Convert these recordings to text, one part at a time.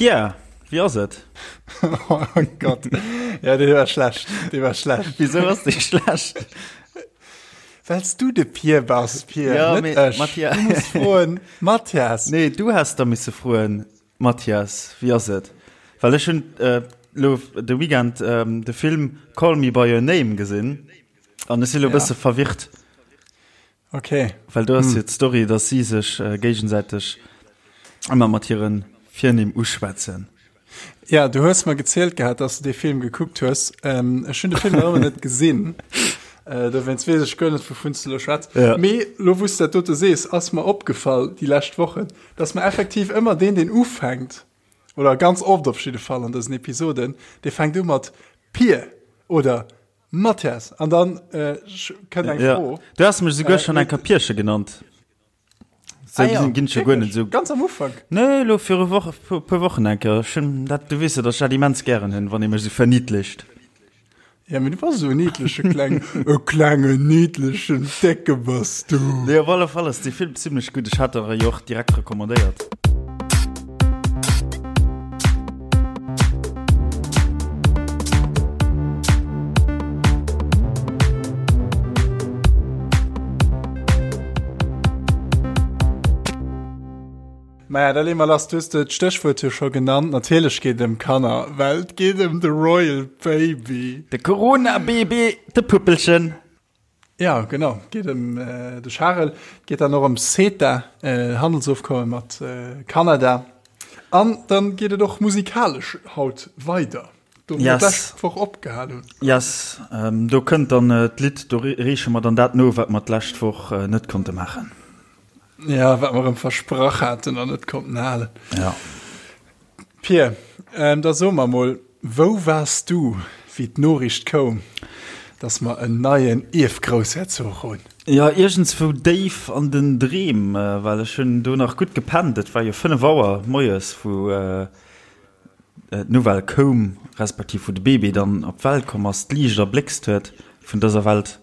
Pierre, wéi ass et? Oh Gott, ja dee war schlecht, dee war schlecht. Wisou ass dee schlecht? Wells du de Pier bass, Pier, ja, net mee, ech. Matthias. Du muss froen, Mathias. Nee, du häss da misse froen, Mathias, wéi ass et? Well ech hunn äh, lo de Weekend ähm, de Film Call Me By Your Name gesinn an ech si lo e Ja. bësse verwirrt. Okay. Well do ass jo d'Story, dass si sech géigesäiteg ëmmer mat hire Virnimm uschwätzen. Ja, du hues mer gezielt gehat, dass du dee Film gekuckt hues. Ähm, ech hunn de Film nach ëmmer net gesinn. Äh, dowéinst weess ech guer net, wouvun s du lo schwätz. Ja. Mee lo, wou s du dat dote sees, ass mer opgefall déi lescht Wochen, dass mer effektiv ëmmer deen, deen ufänkt, oder ganz oft op jidde Fall an dësen Episoden, dee fänkt u mat Pier oder Mathias, an dann äh, kënnt eng Ja. Fro. Du has mech souguer Äh, schon eng Kapierche genannt. So Ah ja, ginn ech guer net wirklich? so. Ganz am Ufank. Nee, lo viru Woche, puer, puer Wochen eng Kéier. Ech hunn dat, du weess jo, dass ech dat immens gären hunn, wann ee mech sou verniedlicht. Ja, mee du bass esou en niedleche kleng, e klengen niedlechen Décke bass du. Nee, op alle Fall ass dee Film zimmlech gutt. Ech hat der e jo och direkt recommandéiert. Maja, da leeë mer lass. Du hues d'Stéchwuert jo scho genannt. Natierlech geet et ëm Kanner, well et geet ëm de Royal Baby. De Corona-Baby, de Puppelchen. Ja, genau. Et geet ëm de Charel. Et geet dann och ëm CETA, Handelsofkomme mat Kanada. An dann geet et och musikalesch haut weider, do wou mer d'lescht Woch opgehal hunn. Yes, do kënnt dann d'Lidd, do reeche mer dann dat no, wat mer d'lescht Woch net konnte maachen. Ja, wat mer erëm versprach haten an net konnten halen. Ja. Pir, da so mer mol, wou waars du, wéi d'Noriicht koum, dass mer en neien Ierfgroussherzog hunn? Jo, iergendswou déif an den Dreem, well ech hunn do nach gutt gepennt. Et war jo 5 Auer moies, wou d'Nouvelle koum, respektiv wou de Bébé dann op d'Welt komm ass, d'Liicht erbléckst huet vun dëser Welt.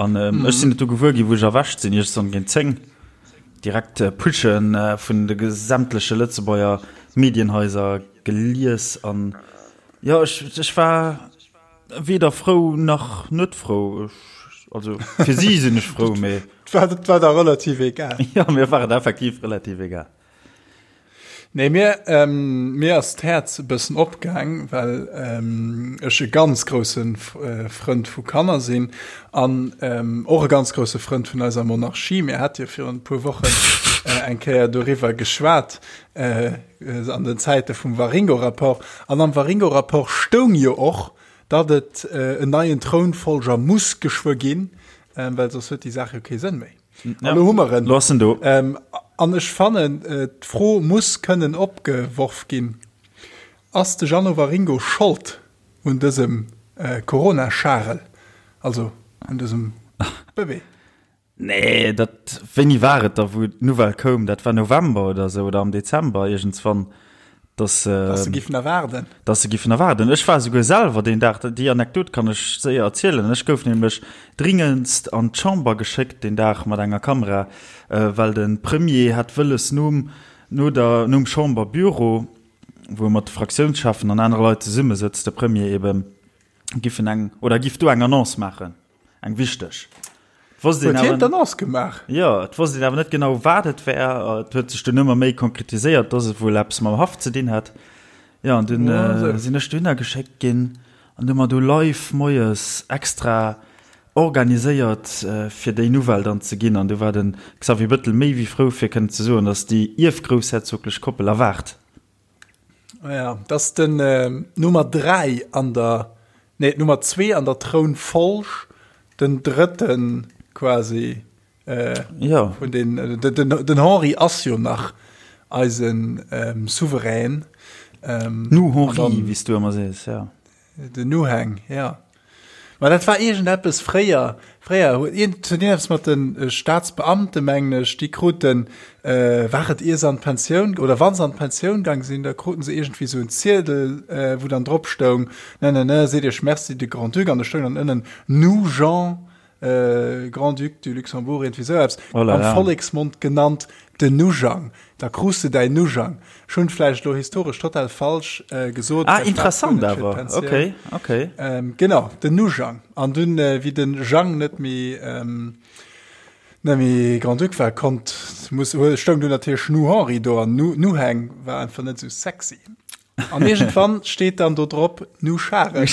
An ech sinn et du gewuer ginn, wou ech erwächt sinn, iergendwann géint 10, direkt Pushe vun de sämtleche Lëtzebuerger Medienhaiser gelies. An jo, ech, ech war weder frou nach net frou. Ech, also fir si sinn ech frou, mee. Et war, et war der relativ egal. Jo, mir war et effektiv relativ egal. Nee, mir, ähm, mir ass d'Häerz e bëssen opgaang, well ähm, ech e ganz grousse äh, Frënd vu Kanner sinn an ähm, och e ganz grousse Frënd vun eiser Monarchie. Mir hat jo virun e puer Wochen äh, eng Kéier doriwwer geschwat äh, an den Zäite vum Waringo-Rapport. An am Waringo-Rapport stoung jo och, datt et äh, en neien Trounfolger muss geschwë ginn, äh, well soss huet déi Saach jo kee Sënn méi. Ja. Lo hu mer en. Lo ass en do. Ähm, an ech fannen, äh, d'Fro muss kënnen opgeworf ginn, Ass de Jeannot Waringo Schold un dësem äh, Corona-Charel, also un dësem Bëbee? Nee, dat, wéini war et da, wou d'Nouvelle koum? Dat war November oder esou oder am Dezember iergendswann. Dass, äh, dass se giffen erwaarden. Dass se giffen erwaarden. Ech war souguer selwer deen Dag, déi Anekdot kann ech séier erzielen, ech gouf nämlech dringendst an d'Chamber geschéckt deen Dag mat enger Kamera, äh, well de Premier hat wëlles nom, no der, nom Chamberbüro, wou e mat de Fraktiounscheffen an anere Leit zesummesëtzt, de Premier eben, giffen eng, oder giff do eng Annonce maachen. Eng wichteg. Wosst een awer, d'Annonce gemaach? Jo, et wosst een awer net genau, wat et wär. Et huet sech dunn ëmmer méi konkretiséiert, dass et wuel eppes mam Haff ze dinn hätt. Jo, an dunn sinn ech dohinner geschéckt ginn an hu mer do live moies extra organiséiert, fir déi Nouvelle dann ze ginn. An du war de Xavier Bettel méi wéi frou, fir kënnen ze soen, dass déi ierfgroussherzoglech Koppel erwaart. Ja, dat ass den äh, Nummer 3 an der nee, Nummer 2 an der Trounfolg, den drëtten quasi äh, ja. vun den, äh, den, den, den Henri ass jo nach eisen ähm, Souverän. Ähm, nu Henri, wéi s du ëmmer sees, ja. Den Nuhang, ja. Ma dat war iergendeppes fréier, fréier huet iergend huet iergendeppes mat de Staatsbeamte mengen ech, déi kruten, war et ier se an d'Pensioun oder wa se an d'Pensioun gaang sinn, da kruten se iergendwéi esou en Ziedel, wou dann drop stoung, ne ne ne, seet iech Merci de Grand-Duc an do stoung dann ënnen, nous Jean. Grand-Duc du Luxembourg, iergendwéi esou eppes, oh là là. am Volleksmond genannt den Nujang. Da krus de däin Nujang. Ech hunn vläicht elo historesch total falsch gesot. Ah, interessant awer. Okay, okay. Genau, den Nujang. An dunn, wéi den Jang net méi, net méi Grand-Duc war, konnt, muss, stoung dunn natierlech Nu Henri do an Nu, Nuhang war einfach net esou sexy. An iergendwann steet dann do drop Nu Scharel.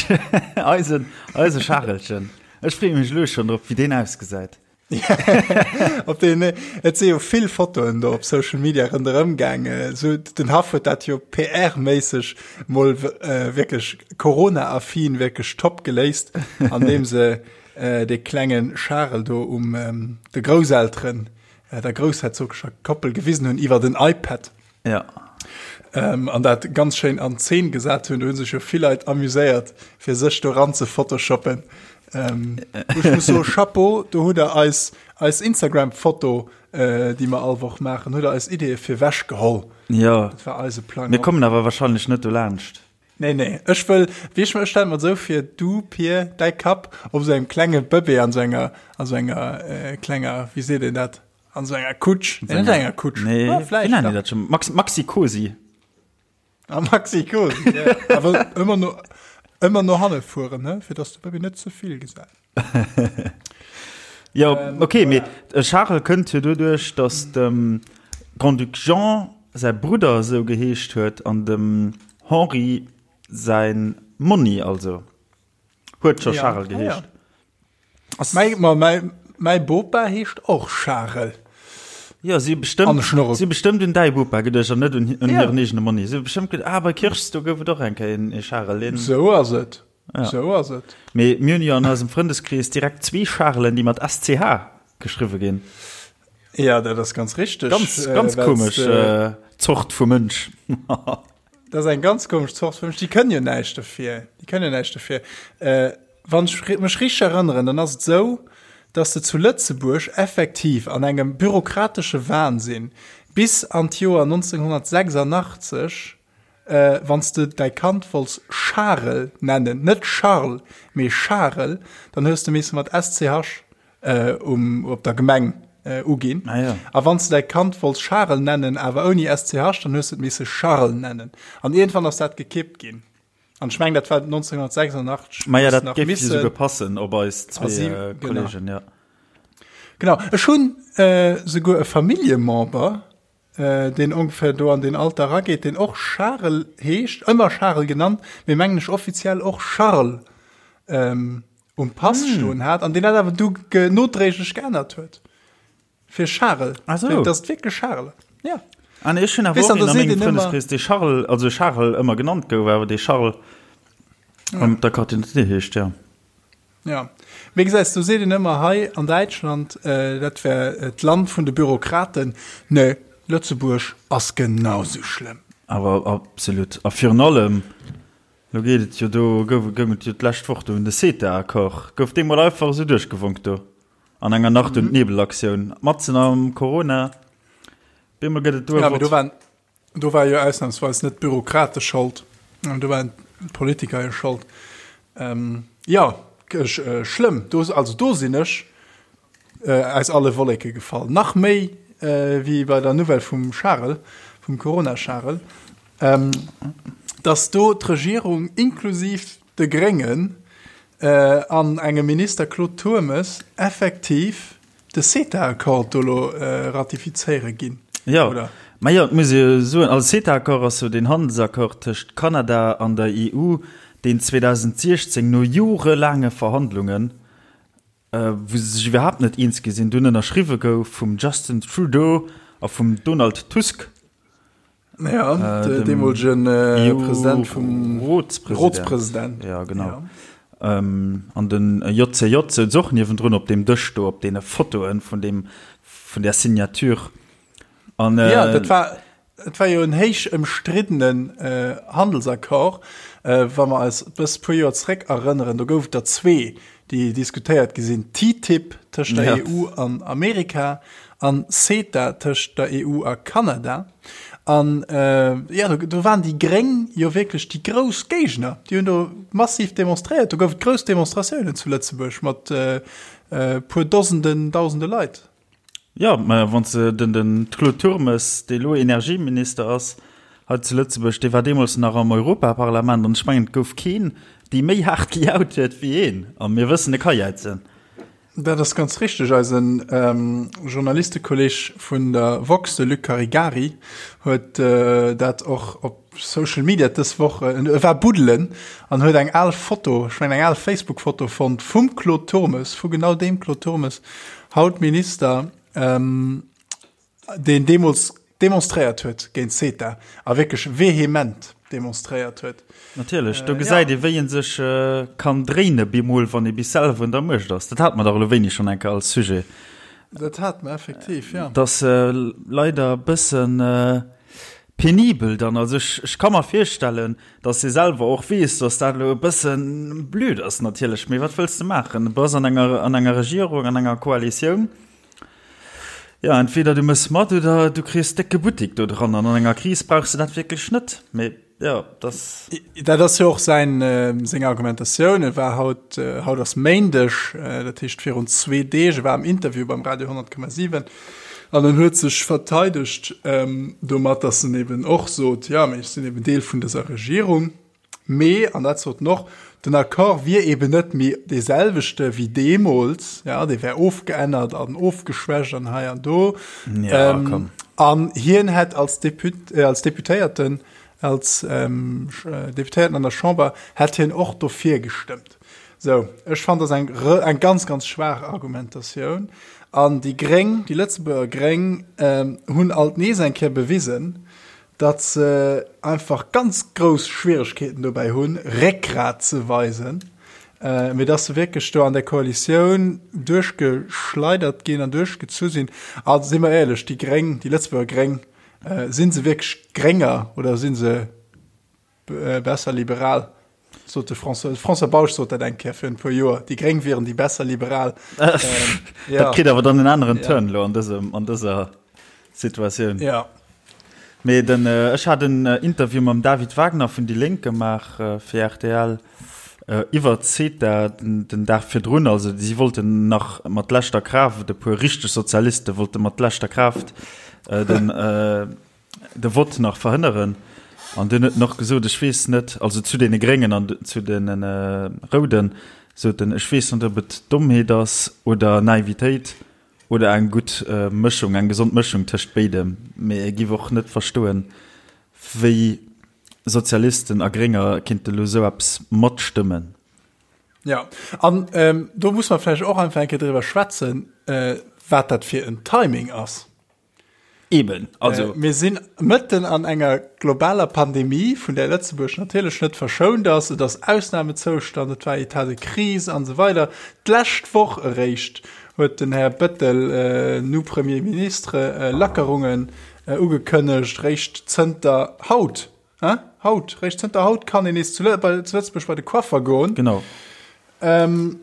Eisen, eise Scharelchen. Ech freeë mech elo schonn drop, wéi deen ausgesäit. Op deen, et si jo vill Fotoen do op Social Media ronderëm gaangen. Sou, den Haff huet dat jo PR-méisseg mol wierklech Corona-affin wierklech top geléist, andeem se dee klenge Charel do um de Grousselteren, der groussherzogescher Koppel gewisen hunn iwwer den iPad. Ja. Ähm, an dat ganz schéin an Zeen gesat hunn. Do hu sech jo vill Leit amuséiert, fir sech do ran ze photoshoppen. Ähm, ech muss soen, Chapeau, do hutt der eis, eis Instagram-Foto, äh, déi mer all Woch maachen, hutt der eis Ideeë fir wech geholl. Ja. Dat war eise Plang. Mir kommen awer wahrscheinlech net do laanscht. Nee, nee, ech wëll, wéi ech, ech stelle mer et esou vir, du, Pir, däi Kapp op esou engem klenge Bëbee an esou enger, an esou enger äh, klenger, wéi seet een dat? An so enger Kutsch. Nee, net enger Kutsch. Nee, ah, vläicht. Wéi nennen die dat schon? Maxi, Maxi Cosi. Ah, Maxi Cosi, ja. Awer ëmmer no, ëmmer no hanne fueren, ne? Fir dass de Bëbi net ze vill gesäit. Jo, ähm, okay, mee voilà. Charel kënnt jo doduerch, dass dem Grand-Duc Jean säi Brudder esou geheescht huet an dem Henri säin Monni also huet scho ja. Charel geheescht. Ah, ja. Mäi, ma mäi, mäi Bopa heescht och Charel. Jo, si bestëmmt, si bestëmmt un däi Bopa geduecht an net un, un ja. hiren eegene Monni. Si bestëmmt geduecht, ah, bei Kirchs, do gouf et och eng Kéier een, ee Charel. Deen... Sou ass et. Ja. Sou ass et. Mee mir hunn jo an eisem Frëndeskrees direkt zwee Charelen, déi mat SCH geschriwwe ginn. Ja, dat ass ganz richteg. Ganz, ganz äh, komesch äh, Zort vu Mënsch. Dat ass eng ganz komesch Zort vu Mënsch. Déi kënnen jo näischt dofir. Déi kënnen jo näischt dofir. Äh, Wann ech mech richteg erënneren, dann ass et esou, dass de zu Lëtzebuerg effektiv an engem bürokratesche Wahnsinn bis an d'Joer 1986, wann s de däi Kand wollts Charel nennen, net Charles, mee Charel, dann hues de misse mat SCH um, op der Gemeng uginn. Ah, ja. A wann s de däi Kand wollts Charel nennen, awer ouni SCH, dann hues de et misse Charles nennen. An iergendwann ass dat gekippt ginn. An ech mengen, dat war 1986. Maja, dat géif jo souguer passen op eis zwee äh, Kollegen, ja. Genau. Ech hunn äh, souguer e Familljemember, äh, deen ongeféier do an deen Alter erageet, deen och Charel heescht, ëmmer Charel genannt, mee mengen ech offiziell och Charles ähm, um Pass mm. stoen hat, an deen dat awer du nodréiglech geännert huet. Fir Charel. Ach so. Dat ass wierklech Charel. Ja. Ah, nee, ech hunn awer och een a mengem Frëndeskrees, dee Charles, also Charel ëmmer genannt gouf, awer dee Charles op der Carte d'identité heescht, ja. Ja. Wéi gesäis, do seet een ëmmer hei an Däitschland, dat wär d'Land vun de Bürokraten. Nee, Lëtzebuerg ass genau sou schlëmm. Awer absolut. A virun allem, lo geet et jo do, gouf, goung et jo d'lescht Woch do un de CETA-Accord, gouf dee mol einfach esou duerchgewonk do. An enger Nacht und Nebelaktioun, matzen am Corona, bemol gëtt et do e Ja, mee do waren, do war jo ausnahmsweis net d'Bürokrate Schold, do waren d'Politiker jo Schold. Ähm, ja, ech, äh, schlëmm. Do, also do sinn ech äh, aus alle Wolleke gefall. Nach méi äh, wéi bei der Nouvelle vum Charel, vum Corona-Charel, ähm, dass do d'Regierung inklusiv de Gréngen an engem Minister Claude Turmes effektiv de CETA-Accord do elo ratifizéiere ginn, Jo, oder? Ma jo, et muss ee jo soen, also CETA-Accord ass jo deen Handelsaccord tëscht Kanada an der EU, deen 2016 no jorelaange Verhandlungen, wou se sech iwwerhaapt net eens gi sinn, dunn ënnerschriwwe gouf vum Justin Trudeau a vum Donald Tusk. Ja, äh, deemolegen äh, President vum Rotspresident. Ja, genau. Ja. Ähm, an den JCJ souz och niewendrun op deem Dësch do op deene Fotoen vun dem vun der Signature. An, äh, ja, dat war Et war jo en héich ëmstriddenen äh, Handelsaccord, äh, wa mer eis bëss puer Joer zréck erënneren, do gouf et der zwee, déi diskutéiert gi sinn, TTIP tëscht der ja. EU an Amerika an CETA tëscht der EU a Kanada. An jo, do waren déi Gréng jo wierklech déi grouss Géigner. Déi hunn do massiv demonstréiert. Do gouf et grouss Demonstratiounen zu Lëtzebuerg mat e puer Dosenden, Dausende Leit. Jo, mä wann s de den den Claude Turmes, dee elo Energieminister ass hei zu Lëtzebuerg, dee war deemools nach am Europaparlament an ech mengen, et gouf keen, dee méi haart gejaut huet wéi een. A mir wëssen, e ka jäizen. Dat ass ganz richteg. Eisen Journalistekolleg vun der woxx, de Luc Caregari, huet dat och op Social Media dës Woch, e war buddelen an huet eng al Foto, ech mengen eng al Facebook-Foto fonnt vum Claude Turmes, vu genau deem Claude Turmes, haut Minister, deen deemools demonstréiert huet géint CETA a wierklech vehement demonstréiert huet. Natierlech, do gesäit ee wéi ee sech kann dréine bemol, wann ee bis selwer un der Muecht ass. Dat hate mer dach elo wéini schonn eng Kéier als Sujet. Dat hate mer effektiv, jo. Et ass leider e bëssen penibel dann. Also ech, ech ka mer virstellen, datt ee selwer och weess, datt dat elo e bëssen blöd ass natierlech, mee wat wëlls de maachen? Du bass an enger, an enger Regierung, an enger Koalitioun. Jo, entweder du mëss mat oder du kriss décke Buttik do dran. An an enger Kris brauchs de dat wierklech net. Mee jo, dass. Dat ass jo och säin, seng Argumentatioun. E war haut, haut ass Méindeg, dat heescht virun zwee Deeg, e war am Interview beim Radio 100,7 an en huet sech verteidegt domat, dass en eben och sot, jo, mee ech sinn eben Deel vun dëser Regierung. Mee, an dat sot en och, den Accord wier eben net méi dee selwechte wéi deemools, ja, dee wär ofgeännert an ofgeschwächt an hei an do. Ja, komm. An hien hätt als Deput, als Deputéierten, als Deputéierten an der Chamber, hätt hien och dofir gestëmmt. Sou, ech fannen, dat ass eng, eng ganz, ganz schwaach Argumentatioun. An déi Gréng, déi Lëtzebuerger Gréng hunn alt nees eng Kéier bewisen, datt se einfach ganz grouss Schwieregkeeten dobäi hunn, Réckgrat ze weisen, mee datt se wierklech do an der Koalitioun duerchgeschleidert ginn an duerchgezu sinn. A si mer éierlech, déi Gréng, déi Lëtzebuerger Gréng, si se wierklech Grénger oder si se besser liberal? Sot de François, François Bausch sot dat eng Kéier virun e puer Joer, déi Gréng wieren déi besser Liberal. Ähm, ja. Dat kritt awer dann en aneren ja. Turn lo an dësem, an dëser Situatioun. Ja. Mee den, äh, ech hat en äh, Interview mam David Wagner vun déi Lénk gemaach äh, fir RTL äh, iwwer CETA den, den Dag virdrun. Also si wollten nach mat leschter Kraaft, e puer richteg Sozialiste wollte mat leschter Kraaft äh, den, äh, de Vott nach verhënneren. An dunn huet en och gesot, ech weess net, also zu deene Gréngen an zu deene Rouden, sot en, ech weess net, ob et Dommheet ass oder Naivitéit oder eng gutt Mëschung, eng gesond Mëschung tëscht béidem, mee e giff och net verstoen, wéi Sozialisten a Grénger kinnte lo esou eppes matstëmmen. Jo, an do muss mer vläicht och einfach eng Kéier driwwer schwätzen, wat dat fir en Timing ass. Eben, also. Äh, mir sinn mëtten an enger globaler Pandemie, vun där Lëtzebuerg natierlech net verschount ass. Et ass Ausnamezoustand, et war État de crise an esou weider. D'lescht Woch eréischt huet den Här Bettel, äh, nu Premier Ministre, äh, Lackerungen äh, ugekënnegt, réischt zënter haut, hein? Haut, réischt zënter haut kann een nees zu, Lë bei, zu Lëtzebuerg bei de Coiffer goen. Genau. Ähm,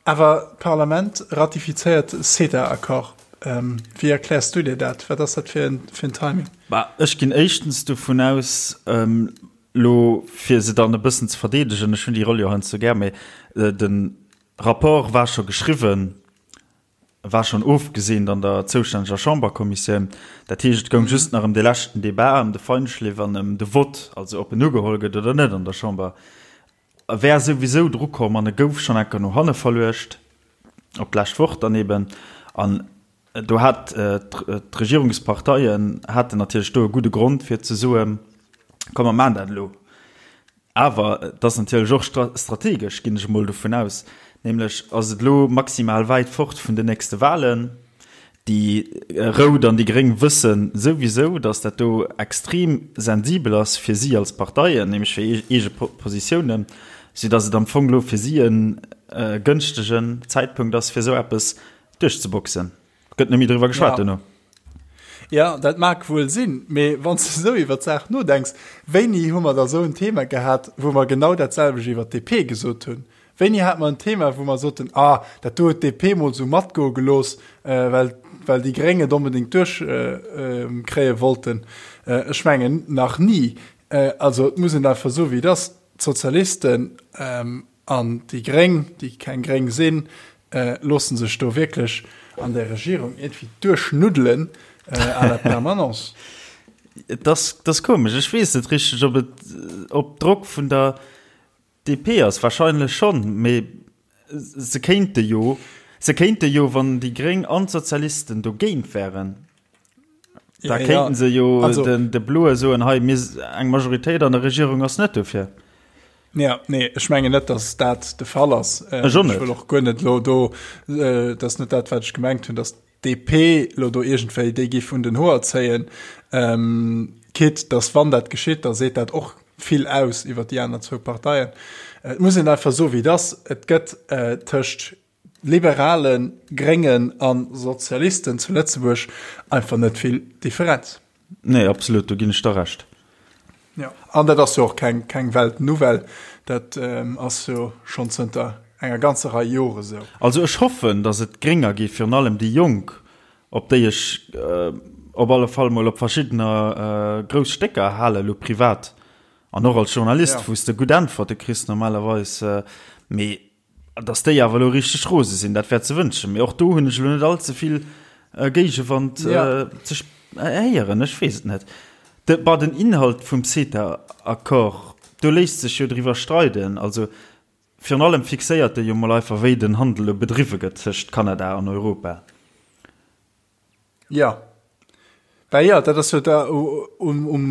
Awer d'Parlament ratifizéiert CETA-Accord. Wéi erkläers du dir dat? Wat ass dat fir en Timing? Bah, ech ginn éischtens dovun aus, elo fir se dann e bëssen ze verdeedegen, ech hunn déi Roll jo heiansdo gär, mee de Rapport war scho geschriwwen, war schonn ofgeseent an der zoustänneger Chamberkommissioun. Dat heescht, et goung just nach ëm de leschten Debat, ëm de Feinschliff an ëm de Vott, also ob en ugeholl gëtt oder net an der Chamber. E wär souwisou dru komm an e gouf schonn enker no hanne verluecht, op d'lescht Woch dann eben. An do hat d'Regierungsparteien haten natierlech do e gudde Grond fir ze soen, komm mer maachen dat elo. Awer et ass natierlech och strategesch, ginn ech emol dovun aus, nämlech ass et elo maximal wäit fort vun den nächste Wahlen. Déi Rout an déi Gréng wësse souwisou, datt dat do extrem sensibel ass fir si als Parteien, nämlech fir eege Positiounen, soudatt et am Fong elo fir si e gënschtegen Zäitpunkt ass, fir esou eppes duerchzeboxen. Gëtt net méi driwwer geschwat duerno. Jo, dat mag wuel sinn, mee wann s de esou iwwer d'Saach nodenks, wéini hu mer da esou en Thema gehat, wou mer genau dat selwecht iwwer d'DP gesot hunn? Wéini hate mer en Thema, wou mer soten, ah, dat do huet d'DP mol esou matgoe gelooss, well, well déi Gréng et onbedéngt duerchkréie wollten. Ech mengen nach ni. Also et muss een einfach soen, wéi et ass, D'Sozialisten an déi Gréng, déi keng Gréng sinn, loosse sech do wierklech an där Regierung iergendwéi duerchnuddelen à la permanence. Et ass komesch, ech weess net richteg, ob et op Drock vun der DP ass wahrscheinlech schonn, mee se kéinte jo, se kéinte jo, wann déi Gréng an d'Sozialisten dogéint wären, da kéinten se jo den de Bloe soen, hei mir, eng Majoritéit an der Regierung ass net dofir. Ja, nee, ech mengen net, datt dat de Fall ass. Ech och net. Ech wëll och guer net elo do, dat ass net dat, wat ech gemengt hunn, datt DP lo do iergendwéi déi giff un den Hoer zéien, quitte dass wann dat geschitt, da seet dat och vill aus iwwer déi aner zwou Parteien. Et muss een einfach soen, wéi et ass, Et gëtt tëscht Liberalen, Gréngen a Sozialisten zu Lëtzebuerg einfach net vill Differenz. Nee, absolut, do ginn ech der Recht. Jo, an dat ass jo och keng, keng Weltnouvelle, dat ass jo schonn zënter enger ganzer Rei Jore sou. Also ech hoffen, datt et Grénger gi, virun allem déi Jonk, op déi ech op alle Fall mol op verschiddener grouss Stécker halen, elo privat an och als Journalist, wou s de gutt Äntwerte kriss normalerweis. Mee Dass déi awer elo richteg rose sinn, dat wär ze wënschen. Mee och do hunn ech elo net all ze vill Géigewand ze héieren. Ech weess et net. De, bah, den Inhalt vum CETA-Accord, do léisst sech jo driwwer streiden. Also virun allem fixéiert e jo mol einfach, wéi den Handel elo bedriwwe gëtt tëscht Kanada an Europa. Jo. Bah jo, dat ass jo da um, um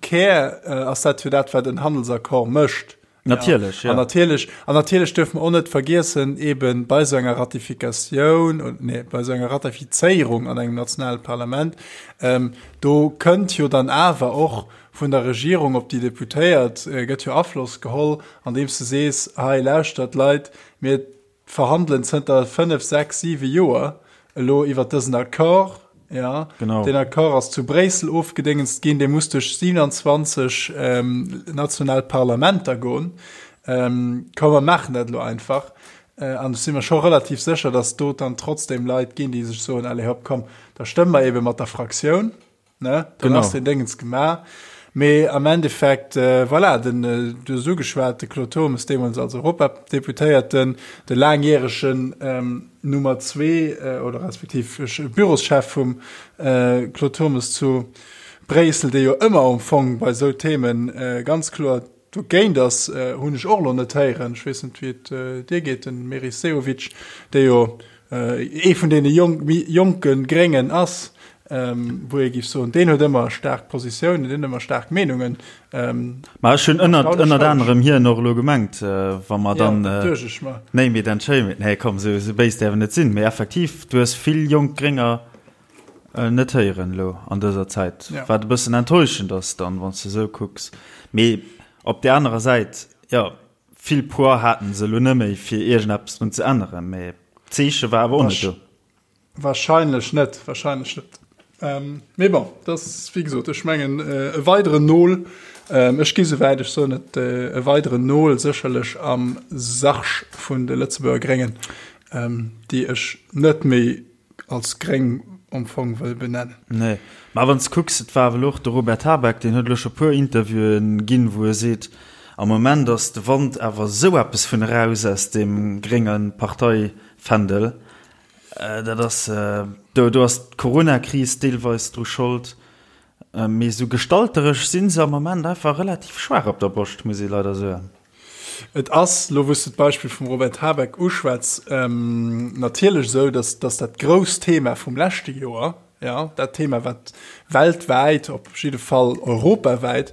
Kär ass dat jo dat, wat en Handelsaccord mécht. Natierlech, ja. An natierlech, an natierlech duerfe mer och net vergiessen, eeben bei esou enger Ratifikatioun, nee, bei esou enger Ratifizéierung an engem nationale Parlament, ähm, do kënnt jo dann awer och vun der Regierung op déi Deputéiert, gëtt jo Afloss geholl, andeems de sees, hei lauschtert Leit, mir verhandelen zënter 5, 6, 7 Joer elo iwwert dësen Accord. Ja, genau. Den Accord ass zu Bréissel ofgedéngenst ginn, dee muss duerch 27 ähm, national Parlamenter goen. Ähm, komm, mer maachen dat elo einfach. Äh, an ech si mer scho relativ sécher, dass do dann trotzdem Leit ginn, déi sech soen, allez hopp, komm, da stëmme mer ebe mat der Fraktioun. Ne? Dann ass den Déngens gemaach. Mee am Endeffekt, äh, voilà, den, äh, du hues ugeschwat, de Claude Turmes deemools als Europadeputéierten, de laangjäregen ähm, Nummer zwee äh, oder respektiv Büroschef vum äh, Claude Turmes zu Bréissel, dee jo ëmmer am Fong bei esou Themen äh, ganz kloer Dogéint ass, hunn ech och elo net héieren, ech weess net wéi et dir geet, den Meris Sehovic, dee jo ee vun deene méi jonke Gréngen ass, wou ee géif soen, deen huet ëmmer staark Positiounen, deen huet ëmmer staark Meenungen. Ma ech hunn ënnert ënnert anerem hien och elo gemengt, wa mer dann, name it and shame it, nee komm, esou béis däerf en net sinn, mee effektiv, du hues vill jonk Grénger Net héieren elo an dëser Zäit, wat e bëssen enttäuschend ass dann, wann s de esou kucks. Mee op där anerer Säit, jo, vill Poids haten se elo net méi, fir iergendeppes drun ze änneren. Mee d'Zeeche war awer och net do. Wahrscheinlech net, wahrscheinlech net. Mee bon, dat ass, wéi gesot, ech mengen e weideren Nol. Ech gi souwäit, ech soen et, e weideren Nol sécherlech am Sarg vun de Lëtzebuerger Gréngen, déi ech net méi als gréng am Fong wëll benennen. Nee, mä wann s de kucks, et war awer elo och de Robert Habeck, deen huet elo scho puer Interviewen ginn, wou e seet, am Moment ass de Wand awer esou eppes vun eraus aus deem grénge Parteifändel. Dat ass, do, do ass d'Coronakris deelweis dru Schold, mee esou gestalteresch si se am Moment einfach relativ schwaach op der Broscht, muss ee leider soen. Et ass, elo wou s de d'Beispill vum Robert Habeck uschwätz, natierlech esou, datt datt dat grousst Thema vum leschte Joer, jo, dat Thema wat weltwäit, op jidde Fall europawäit,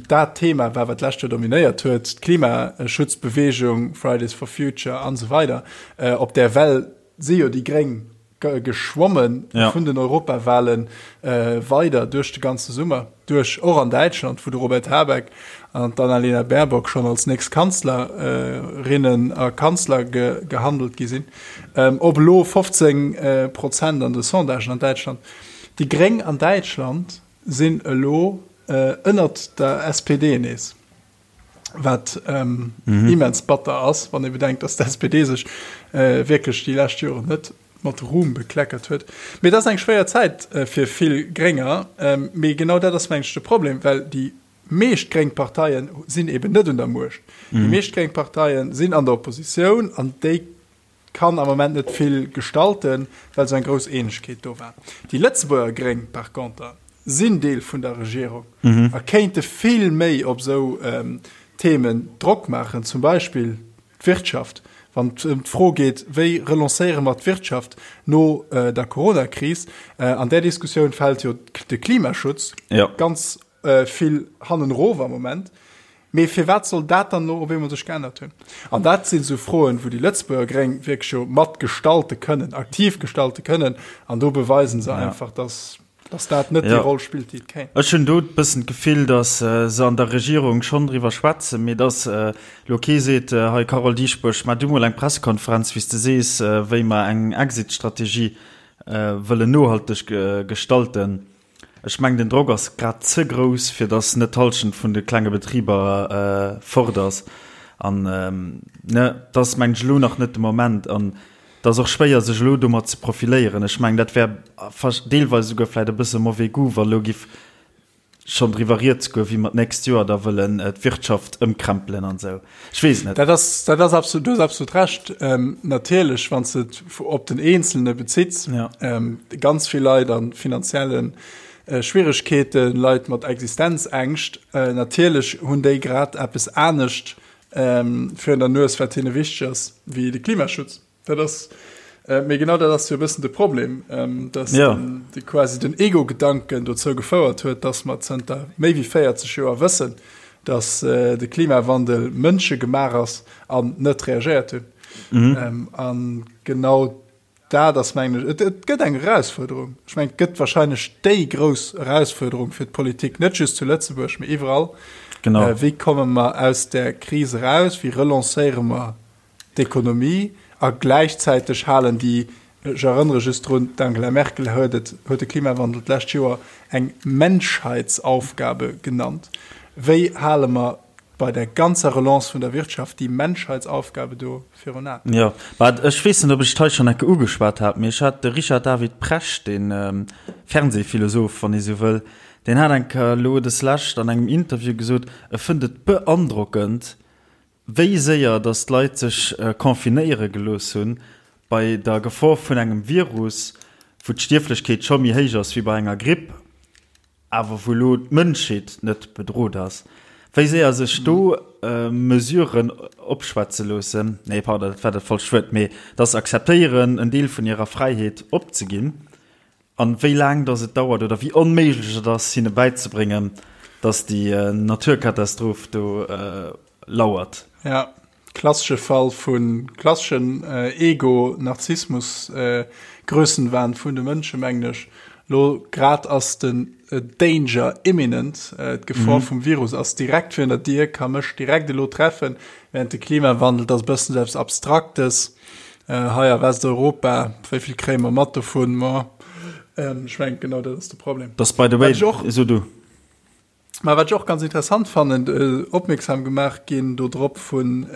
dat Thema war, wat d'lescht Joer dominéiert huet, d'Klimaschutzbewegung, Fridays for Future an esou weider, op där Well si jo déi Gréng geschwommen ja. vun den Europawahlen äh, weider duerch de ganze Summer duerch och an Däitschland, wou de Robert Habeck an d'Annalena Baerbock schon als nächst Kanzlerinnen äh, a Kanzler ge gehandelt gi sinn. Ähm, op elo 15 äh, Prozent an de Sondagen an Däitschland. Déi Gréng an Däitschland sinn elo äh, ënnert der SPD nees. wat ähm, mhm. immens batter ass, wann ee bedenkt, dass d'SPD sech äh, wierklech déi lescht Joren net. mat Ruhm bekleckert huet. Mee et ass eng schwéier Zäit fir vill Grénger. Mee genau dat ass, mengen ech, de Problem, well déi meescht gréng Parteien sinn eben net un der Muecht. Déi meescht gréng Parteien sinn an der Oppositioun an déi kann am Moment net vill gestalten, well esou eng grouss Eenegkeet do war. Déi Lëtzebuerger Gréng par conter sinn Deel vun der Regierung a kéinte vill méi op esou Themen Drock maachen, zum Beispill d'Wirtschaft, wann et ëm d'Fro geet, wéi relancéiere mer d'Wirtschaft no der Coronakris. An där Diskussioun fält jo de Klimaschutz ganz vill hannen erof am Moment. Mee firwat soll dat dann elo op eemol sech geännert hunn? An dat sinn esou Froen, wou déi Lëtzebuerger Gréng wierklech jo mat gestalte kënnen, aktiv gestalte kënnen. An do beweisen se einfach, dass, dass dat net déi Roll spillt, déi et kéint. Ech hunn do e bëssen d'Gefill, dass se an der Regierung schonn driwwer schwätzen, mee dass elo kee seet, hei Carole Dieschbourg, maach du mol eng Pressekonferenz, wéi s de sees, wéi mer eng Exit-Strategie wëllen nohalteg gestalten. Ech mengen den Drock ass grad ze grouss fir datt net d'Halschent vun de klenge Betriber fort ass. An ne, et ass mengen ech elo nach net de Moment an et ass och schwéier sech elo domat ze profiléieren. Ech mengen dat wär deelweis esouguer vläit e bësse mauvais goût wa elo giff schonn driwwer rieds goen, wéi mer d'nächst Joer da wëllen d'Wirtschaft ëmkrempelen an esou. Ech weess et net. Dat ass, dat ass absolut, du hues absolut Recht. Natierlech, wann s de et op den Eenzelne bezitts, ganz vill Leit a finanzielle Schwieregkeeten, Leit mat Existenzängscht, natierlech hunn déi grad eppes anescht virun der Nues, wat hinne wichteg ass, wéi de Klimaschutz. Dat ass, mee genau dat ass jo e bëssen de Problem, dass den, de quasi den Ego-Gedanken dozou gefouert huet, dass mer zënter méi wéi 40 Joer wëssen, dass de Klimawandel mënschegemaach ass an net reagéiert hunn. An genau dat ass, mengen ech, et, et gëtt eng Erausfuerderung. Ech mengen, et gëtt wahrscheinlech déi grouss Erausfuerderung fir d'Politik, net just zu Lëtzebuerg, mee iwwerall. Genau. Wéi komme mer aus där Kris eraus? Wéi relancéiere mer d'Ekonomie a gläichzäiteg halen déi, ech erënnere just drun, d'Angela Merkel huet et, huet de Klimawandel d'lescht Joer eng Menschheitsaufgabe genannt. Wéi hale mer bei der ganzer Relance vun der Wirtschaft déi Menschheitsaufgabe do virun Aen? Jo, mä ech weess net, ob ech et hei schonn enke ugeschwat hat, mee ech hat de Richard David Precht, dee Fernsehphilosoph, wann ee sou wëll, deen hat eng Kéier elo deslescht an engem Interview gesot, e fënnt et beandrockend, Wéi séier datt d'Leit sech confinéiere gelooss hunn, bei der Gefor vun engem Virus, wou d'Stierflechkeet scho méi héich ass wéi bei enger Gripp, awer wou elo d'Mënschheet net bedrot ass. Wéi séier sech do Mesuren opschwätze loossen, nee pardon, dat war dat falscht Wuert, mee datt se akzeptéieren, en Deel vun hirer Fräiheet opzeginn. An wéi laang dass et dauert oder wéi onméiglech et ass hinne bäizebréngen, dass déi Naturkatastroph do lauert. Ja, klassesche Fall vu klasseschen Ego, Narzissmus, Grössenwahn vun de Mënsche mengen ech. Lo grad ass den Danger imminent, d'Gefor vum Virus ass direkt virun der Dier, ka mech direkt elo treffen, während de Klimawandel, dat ass e bëssen esou eppes Abstraktes. Hei a Westeuropa, wéi vill kréie mer mat dovun? Ma ech mengen, genau dat ass de Problem. Dass by the way, so du. Ma wat ech och ganz interessant fannen, opmierksam gemaach ginn do drop vun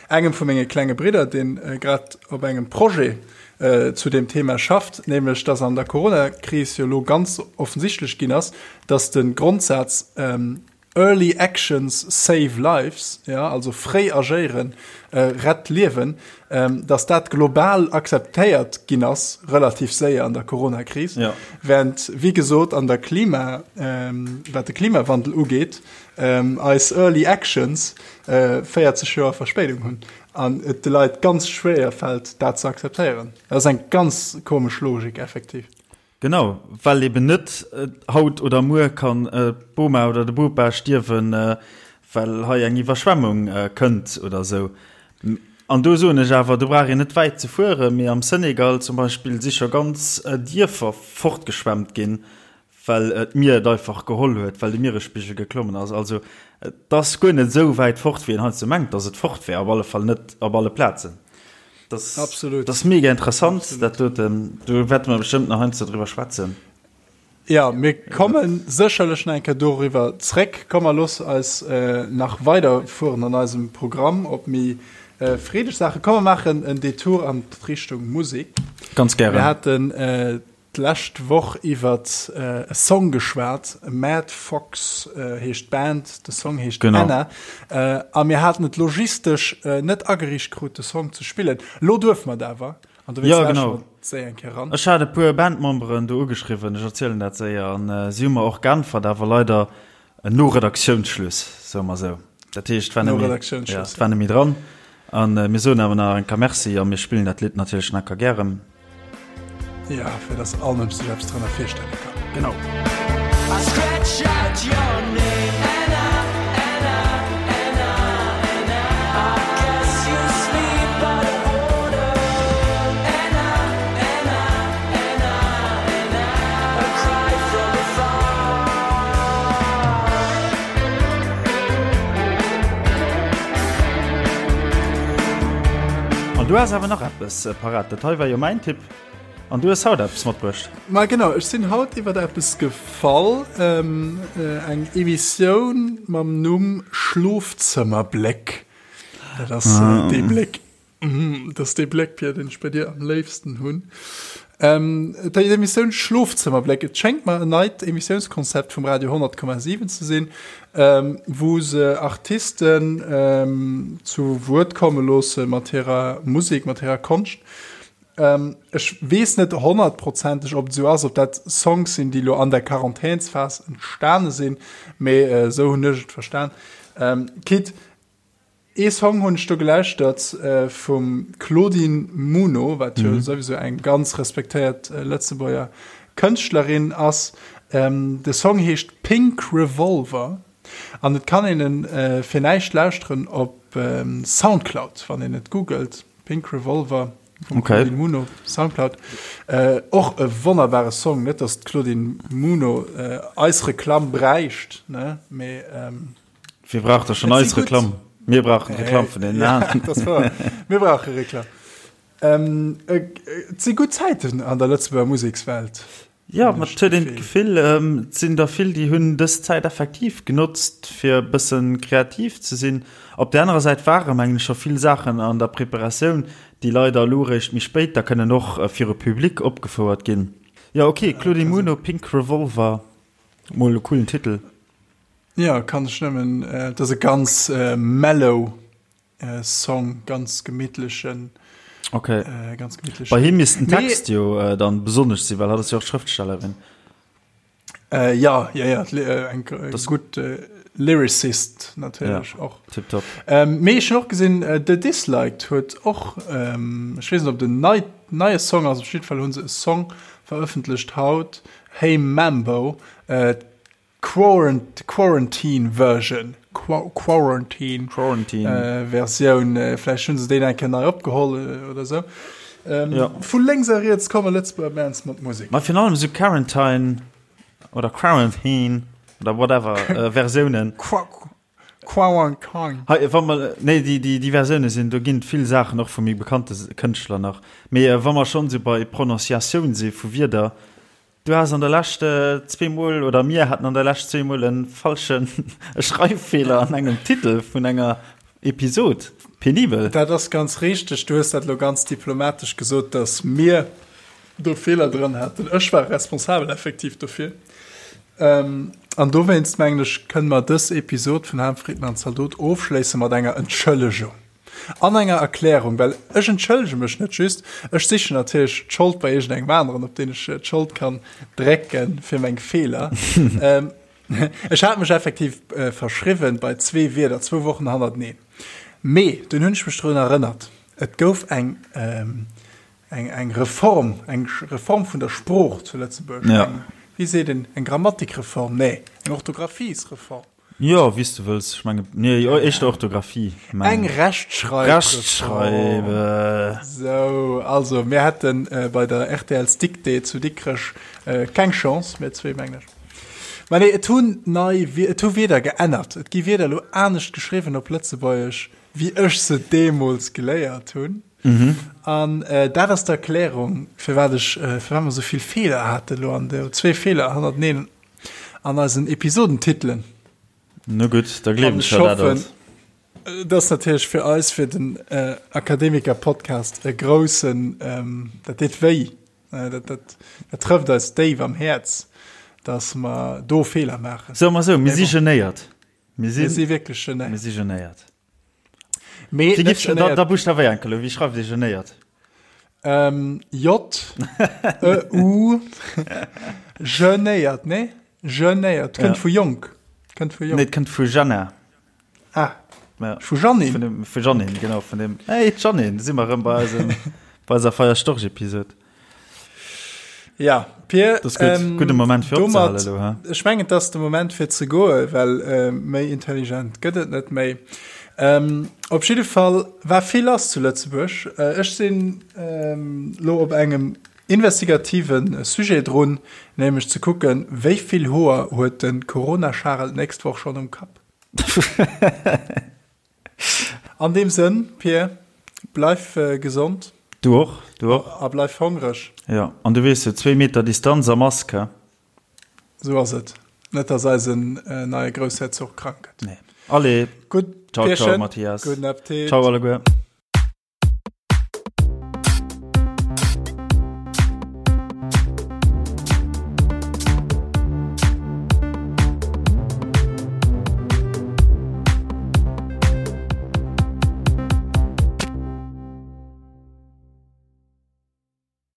engem vu menge klenge Bridder, deen grad op engem Projet zu deem Thema schafft, nämlech dass an der Coronakris jo elo ganz offensichtlech ginn ass, dass de Grondsaz Early actions save lives, jo, also fréi agéieren rett Liewen, dass dat global akzeptéiert ginn ass, relativ séier an der Coronakris, während, wéi gesot, an der Klima, wat de Klimawandel ugeet, eis early actions 40 Joer Verspéidung hunn an et de Leit ganz schwéier fält, dat ze akzeptéieren. Dat ass eng ganz komesch Logik effektiv. Genau, well eben net haut oder muer kann d'Boma oder de Bopa stierwen, well hei eng Iwwerschwemmung kënnt oder esou. An do soen ech awer, do brauch een net wäit ze fueren, mee am Senegal zum Beispill si scho ganz Dierfer fortgeschwemmt ginn, well d'Mier et einfach geholl huet, well de Mieresspigel geklommen ass. Also et ass guer net esou wäit fort, wéi een heiansdo mengt, datt et fort wär, op alle Fall net op alle Plazen. Das, Absolut. Das mega interessant Absolut. dat doten. Do wäerte mer bestëmmt nach heiansdo driwwer schwätzen. Ja, mir kommen sécherlech nach eng Kéier doriwwer zréck. Komm, mer looss eis äh, nach weiderfueren an eisem Programm op méi. freedeg Saachen. Komm mer maachen en Detour an d'Richtung Musek. Ganz gären. Mir haten d'lescht Woch iwwert e Song geschwat, Mad Fox heescht d'Band, de Song heescht Anna. A mir haten et logistesch net ageriicht krut, de Song ze spillen. Elo duerfe mer et awer. An dowéinst lauschteren mer séier eng Kéier eran. Ech hat e puer Bandmemberen do ugeschriwwen, ech erzielen dat séier, an si hu mer och geäntwert, awer leider no Redaktiounsschluss, soe mer esou. Dat heescht, et war net méi, ja, et war net méi dran. A mir soen awer nach eng Kéier Merci a mir spillen dat Lidd natierlech nach eng Kéier gären. Ja, fir dass all Mënsch sech eppes drënner virstelle kann. Genau. An du has awer nach eppes parat. Dat hei war jo mäin Tipp. An du hues haut eppes matbruecht. Ma genau, ech sinn haut iwwer eppes gefall, eng Emissioun mam Numm Schlofzëmmerbléck. Dat ass dee Bléck, dat ass dee Bléck, Pierre, deen ech bei dir am léifsten hunn. Déi Emissioun Schlofzëmmerbléck, et schéngt mer en neit Emissiounskonzept vum Radio 100,7 ze sinn, wou se Artisten zu Wuert komme loosse mat hirer Musek, mat hirer Konscht. Ech weess net honnertprozenteg, ob et esou ass, ob dat Songs sinn, déi elo an der Quarantänsphas entstane sinn, mee esou hunn ech et verstan. Quitte, ee Song hunn ech do gelauschtert vum Claudine Muno, wat jo souwisou eng ganz respektéiert Lëtzebuerger Kënschtlerin ass. De Song heescht Pink Revolver an et kann een en fir näischt lauschteren op Soundcloud, wann een et googelt. Pink Revolver vum okay. Claudine Muno, Soundcloud. Äh, och e wonnerbare Song, net dass d'Claudine Muno äh, eis Reklamm bräicht, ne? Mee, ähm, Wie braucht da schon eis Reklamm? Mir brauchen Reklamm vun den ja, Mir brauche Reklamm. Ähm, äh, et si gutt Zäiten an der Lëtzebuerger Musekswelt. Jo, ma et huet een d'Gefill, et sinn der vill, déi hunn dës Zäit effektiv genotzt, fir e bësse kreativ ze sinn. Op där anerer Säit ware mengen ech scho vill Saachen an der Preparatioun, déi leider elo eréischt méi spéit da kënnen och viru Public opgefouert ginn. Jo, ok, Claudine Muno, Pink Revolver, mol e coolen Titel. Jo, kann ech nëmmen, et ass e ganz mellow Song, ganz gemittlechen. Okay. Äh, ganz gemittlechen. Bei him misst den Text jo äh, dann besonnesch sinn, well hat ass jo och Schrëftstellerin. Äh, ja, ja, ja, äh, eng äh, das gut äh, Lyricist natierlech ja, och. Tip top. Ähm, mee ech hun och gesinn, äh, The Disliked huet och, ähm, ech weess net ob den nei, neie Song ass, op jidde Fall hunn se e Song verëffentlecht haut, Hey Mambo, äh, Quarantine Version, Quarantine, Quarantine. Versioun, vläicht hunn se déi eng Kéier nei opgeholl oder esou. Ja. Vu lénks a riets komme Lëtzebuerger Bands mat Musek. Ma virun allem esou Quarantine oder Quarantine oder whatever Versiounen. Quarantine. Hei, wa mer, nee, déi, déi, déi Versioune sinn, do ginn et vill Saachen och vu méi bekannte Kënschtler nach. Mee wa mer schonn esou bei Prononciatioun si vu Wierder, Du has an der Lescht zweemol, oder mir haten an der Lescht zweemol e falschen e Schreiffeeler an engem Titel vun enger Episod. Penibel. Dat ass ganz richteg. Du hues dat elo ganz diplomatesch gesot, dass mir do Feeler dran haten. Ech war responsabel effektiv dofir. An dowéinst, mengen ech, kënne mer dës Episod vun Ham, Fritten an Zaldot ofschléisse mat enger Entschëllegung. An enger Erklärung, well ech entschëllege mech net just, ech sichen natierlech d'Schold bei iergendengem aneren, op deen ech d'Schold kann drécken fir meng Feeler. Ech hat mech effektiv verschriwwen bei zwee Wierder, zwou Wochen hannerteneen. Mee dunn hunn ech mech drun erënnert, et gouf eng, eng, eng Reform, eng Reform vun der Sprooch zu Lëtzebuerg, eng, wéi seet een, eng Grammatikreform, nee, eng Orthographiesreform. Jo, wéi s de wëlls. Ech menge, nee, jo, éischter Orthografie, mengen Eng ech. Rechtschreibreform. Rechtschreibe. Sou, also mir hätten bei der RTL's Dictée zu Dikrech keng Chance, mir zwee, mengen ech. Mä nee, et hunn nei, et hu Wierder geännert. Et gi Wierder elo anescht geschriwwen op Lëtzebuergesch, wéi ech se deemools geléiert hunn. An dat ass d'Erklärung, firwat ech, firwat mer esou vill Feeler haten elo an de, zwee Feeler hannerteneen. An eisen Episodentitelen. No gutt, da gleewen ech der dat alt. Et ass natierlech fir eis, fir den Akademiker-Podcast e groussen, dat deet wéi, dat, dat, dat trëfft eis déif am Häerz, dass mer do Feeler maachen. Soe mer esou, mir si genéiert. Mir si wierklech genéiert. Mir si genéiert. Mee Wéi gifft, da, da buschtawéier enke lo, wéi schreift ee genéiert? Ähm, J, E, U, genéiert, nee? Genéiert, kënnt ja. vu jonk. Kënnt vu jonk. Nee, kënnt vu Jana. Ah. Ja. Vu Janine. Vun dem, vu Janine, genau, vun dem. Hey, Janine, si mer rëm bei eisem, bei eiser Feierstorch-Episode. Ja, Pir, das gut, ähm, gute Moment fir domat, elo, he? Ech mengen, et ass de Moment fir ze goe, well äh, méi intelligent gëtt et net méi. Ähm, op jidde Fall war vill lass zu Lëtzebuerg. Äh, ech sinn ähm, lo op engem investigativen Sujet drun, nämlech ze kucken, wéi vill Hoer huet de Corona-Charel d'nächst Woch schonn um Kapp. An deem Sënn, Pir, bleif gesond. Du och, du och. A bleif hongreg. Jo, an du weess jo, zwéi Meter Distanz a Mask, he? Sou ass et. Net, dass eisen neie Groussherzog krank gëtt. Nee. Allez. Gutt, Ciao, ciao, Mathias. Gudden Appetit. Ciao alleguer.